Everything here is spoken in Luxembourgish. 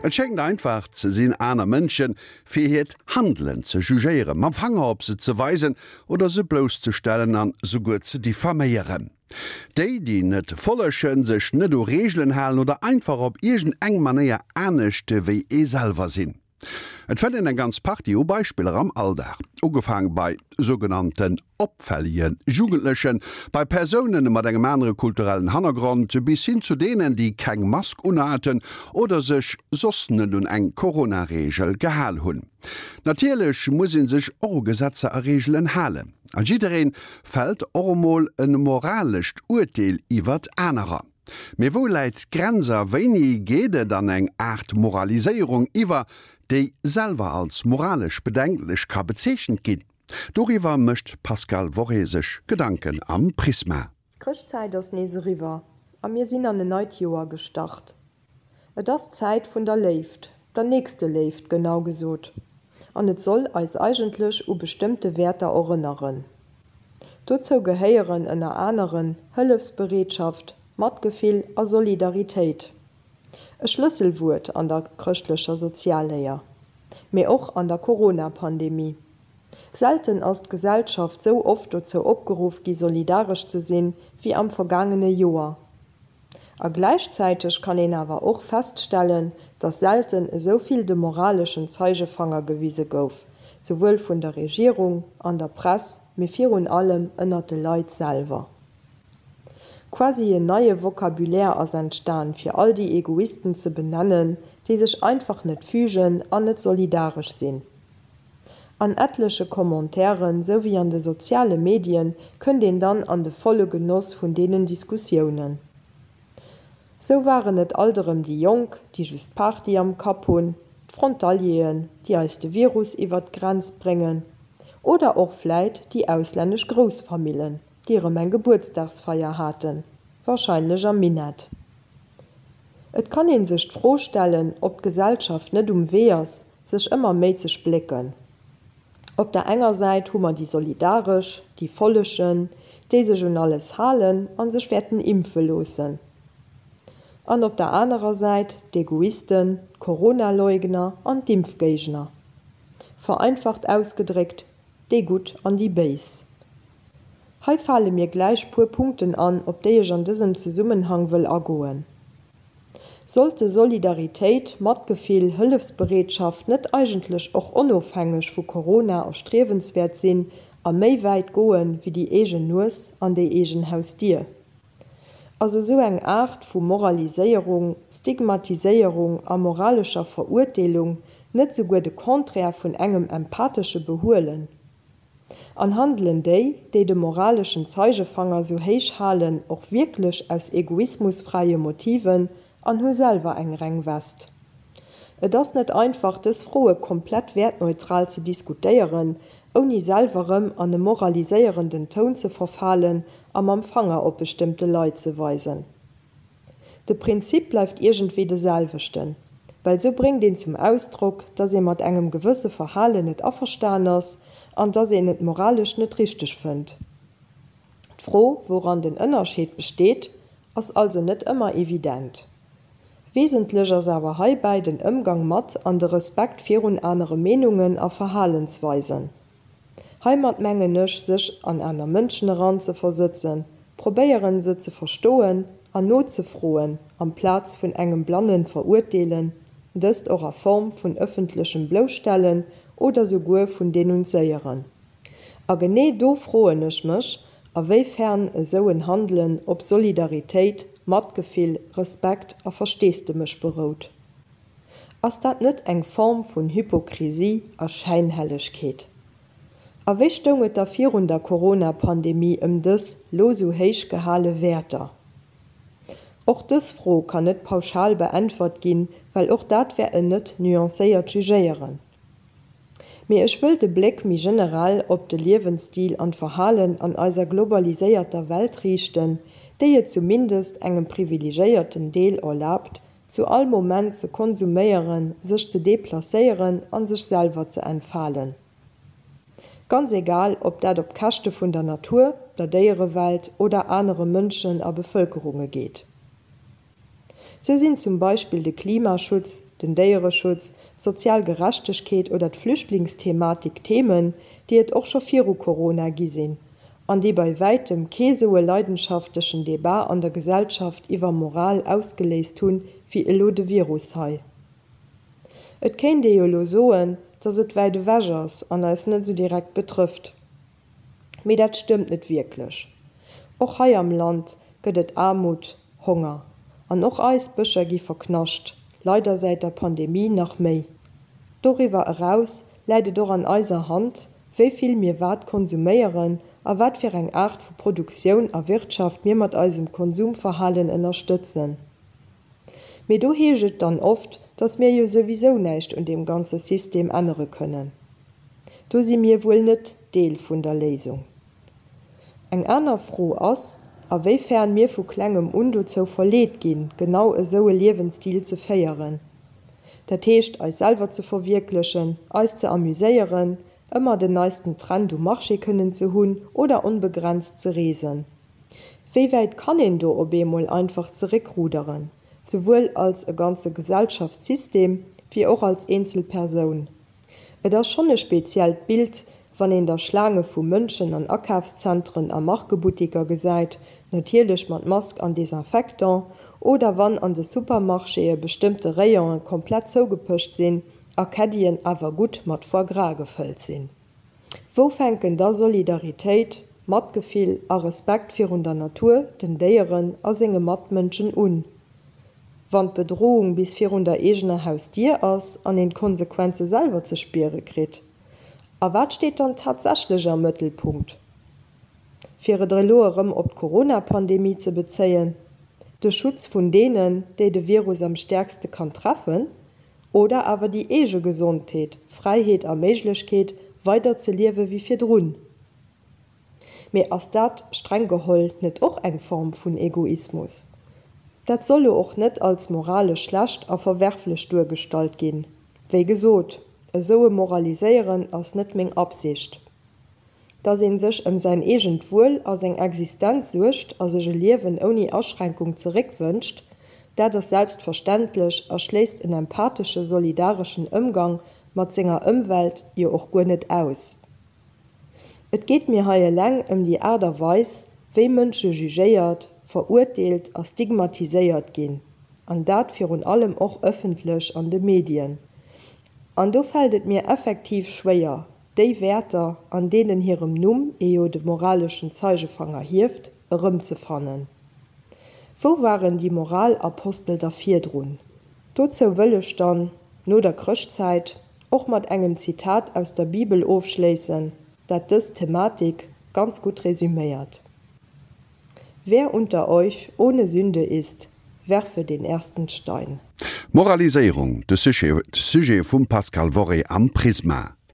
Et schéngt einfach ze sinn, aner Mënsche fir hiert Handelen ze jugéieren, mam Fanger op se ze weisen oder se blousszestellen an souguer ze diffaméieren. Déi, déi net follegen, sech net u Reegelen halen oder einfach op iergend eng Manéier anescht wéi ee selwer sinn. Et fënnt een eng ganz Partie u Beispiller am Alldag, ugefaang bei sougenannten opfällege Jugendlechen, bei Persoune mat engem anere kulturellen Hannergrond, bis hin zu deenen, déi keng Mask unhaten oder sech soss net un eng Corona-Reegel gehal hunn. Natierlech muss ee sech och u Gesetzer a Reegelen halen a jidderee fält och emol e moralescht Urteel iwwert anerer. Mee wou läit d'Grenz a wéini geet et an eng Aart Moraliséierung iwwer, déi selwer als moralesch bedenklech ka bezeechent ginn? Doriwwer mécht d'Pascale Worré sech Gedanken am Prisma. D'Chrëschtzäit ass nees eriwwer a mir sinn an en neit Joer gestart. Et ass d'Zäit vun der Léift, der Nächsteléift genau gesot, an et soll eis eigentlech u bestëmmte Wäerter erënneren. Dozou gehéieren ënner aneren Hëllefsbereetschaft, Matgefill a Solidaritéit. E Schlësselwuert an der chrëschtlecher Sozialléier, mee och an der Corona-Pandemie. Selten ass d'Gesellschaft sou oft dozou opgeruff gi solidaresch ze sinn, wéi am vergaangene Joer. A gläichzäiteg kann een awer och feststellen, dass selten esou vill de moraleschen Zeigefanger gewise gouf, souwuel vun der Regierung, an der Press, mee virun allem ënnert de Leit selwer. Quasi en neie Vocabulaire ass entstan, fir all déi Egoisten ze benennen, déi sech einfach net fügen an net solidaresch sinn. An etleche Commentairen, sou wéi an de soziale Medien, kënnt een dann an de volle Genoss vun deenen Diskussiounen. Sou waren et alt erëm déi Jonk, déi just Party am Kapp hunn, d'Frontalieren, déi eis de Virus iwwert d'Grenz bréngen, oder och vläit déi auslännesch Groussfamillen, déi erëm eng Gebuertsdagsfeier haten, warscheinlech am Minett. Et kann een sech d'Fro stellen, ob d'Gesellschaft net um Wee ass, sech ëmmer méi ze splécken. Op der enger Säit hu mer déi Solidaresch, déi Follegen, déi sech un alles halen a sech wäerten impfe loossen. An op der anerer Säit d'Egoisten, d'Corona-Leugner an d'Impfgéigner. Vereinfacht ausgedréckt, déi Gutt an déi Béis. Hei fale mir gläich puer Punkten an, op déi ech an dësem Zesummenhang wëll agoen. Sollte Solidaritéit, Matgefill, Hëllefsbereetschaft net eigentlech och onofhängeg vu Corona erstriewenswäert sinn a méi wäit goen, wéi déi eegen Nues an déi eegen Hausdier? Ass esou eng Aart vu Moraliséierung, Stigmatiséierung a moralescher Verurteelung net souguer de Contraire vun engem empathesche Behuelen? An handelen déi, déi de moraleschen Zeigefanger sou héich halen, och wierklech aus egoismusfräie Motiven an hu selwer eng reng West? Et ass net einfach, dës Froe komplett wäertneutral ze diskutéieren, ouni selwer rëm an e moraliséierenden Toun ze verfalen a mam Fanger op bestëmmte Leit ze weisen. De Prinzip bleift iergendwéi de selwechten, well sou bréngt een zum Ausdrock, dass ee mat engem gewësse Verhalen net averstan ass an dass een et moralesch net richteg fënnt. D'Fro, wouran den Ënnerscheed besteet, ass also net ëmmer evident. Wesentlech ass awer heibäi den Ëmgang mat an de Respekt virun anere Meenungen a Verhalensweisen. Heimat mengen ech, sech an aner Mënschen eranzeversëtzen, probéieren se ze verstoen an nozefroen, amplaz vun engem blannen Verurteelen, dëst och a Form vun ëffentlechem Blousstellen oder souguer vun Denunzéieren. A genee do froen ech mech, a wéi fern esou en Handelen op Solidaritéit, Matgefill, Respekt a Versteesdemech berout. Ass dat net eng Form vun Hypokrisie a Schäinhellegkeet? A wéi stoung et da virun der Corona-Pandemie ëm dës lo sou héich gehale Wäerter? Och dës Fro kann net pauschal beäntwert ginn, well och dat wär en net nuancéiert Jugéieren. Mee ech wëll de Bléck méi generell op de Liewensstil an d'Verhalen an eiser globaliséierter Welt riichten, déi et zumindest engem privilegéierten Deel erlaabt, zu all Moment ze konsuméieren, sech ze deplacéieren an sech selwer ze entfalen. Ganz egal, ob dat op Käschte vun der Natur, der Déierewelt oder anere Mënschen a Bevëlkerunge geet. Sou sinn zum Beispill de Klimaschutz, den Déiereschutz, d'sozial Gerechtegkeet oder d'Flüchtlingsthematik Themen, déi et och scho viru Corona gi sinn an déi bei wäitem kee sou e leidenschaftlechen Debat an der Gesellschaft iwwer Moral ausgeléist hunn, wéi elo de Virus hei. Et kéint ee jo elo soen, dass et wäit ewech ass an eis net sou direkt betrëfft. Mee dat stëmmt net wierklech. Och hei am Land gëtt et Aarmut, Honger. An och eis Bëscher gi verknascht, leider säit der Pandemie nach méi. Doriwwer eraus läit et och an eiser Hand, wéi vill mir wat konsuméieren a wat fir eng Aart vu Produktioun a Wirtschaft mir mat eisem Konsumverhalen ënnerstëtzen. Mee do heescht et dann oft, dass mir jo souwisou näischt un deem ganze System ännere kënnen. Do si mir wuel net Deel vun der Léisung. Eng aner Fro ass, a wéi fern mir vu klengem un dozou verleet ginn, genau esou e Liewensstil ze féieren. Dat heescht, eis selwer ze verwierklechen, eis ze amuséieren, ëmmer den neisten Trend um Marché kënnen ze hunn oder onbegrenzt ze reesen. Wéi wäit kann een do op eemol einfach zeréckruderen, souwuel als e ganze Gesellschaftssystem wéi och als eenzel Persoun? Et ass schonn e speziellt Bild, wann een da Schlaange vu Mënschen an Akafszentren a Markebuttiker gesäit, natierlech mat Mask an Desinfectant, oder wann an de Supermarchéë bestëmmte Rayone komplett zougepëscht sinn a Caddien awer gutt mat Foie gras gefëllt sinn. Wou fänken da Solidaritéit, Matgefill a Respekt virun der Natur, den Déieren a senge Matmënschen un? Wann d'Bedrohung bis virun der eegener Hausdier ass an een d'Konsequenze selwer ze spiere kritt? A wat steet dann tatsächlech am Mëttelpunkt? Fir et elo erëm op d'Corona-Pandemie ze bezéien, De Schutz vun deenen, déi de Virus am stäerkste kann treffen, oder awer déi eege Gesondheet, Fräiheet a Méiglechkeet, weider ze liewe wéi virdrun? Mee ass dat, streng geholl, net och eng Form vun Egoismus? Dat soll lo och net als moralesch schlecht a verwerflech duergestallt ginn. Wéi gesot, esou e Moraliséieren ass net meng Absicht. Dass een sech ëm säin eegent Wuel a seng Existenz suergt a sech e Liewen ouni Aschränkung zeréckwënscht, dat ass selbstverständlech a schléisst en empathesche solidareschen Ëmgang mat senger Ëmwelt jo och guer net aus. Et geet mir hei eleng ëm déi Aart a Weis, wéi Mënsche jugéiert, verurteelt a stigmatiséiert ginn, an dat virun allem och ëffentlech an de Medien. An do fält et mir effektiv schwéier, déi Wäerter, an deenen hirem Numm ee jo de moraleschen Zeigefanger hieft, erëmzefannen. Wou waren déi Moralapostel da virdrun? Dozou wëll ech dann, no der Chrëschtzäit, och mat engem Zitat aus der Bibel ofschléissen, dat dës Thematik ganz gutt resüméiert, Wer unter euch ohne Sünde ist, werfe den ersten Stein. Moraliséierung, de Sujet vum Pascal Worré am Prisma.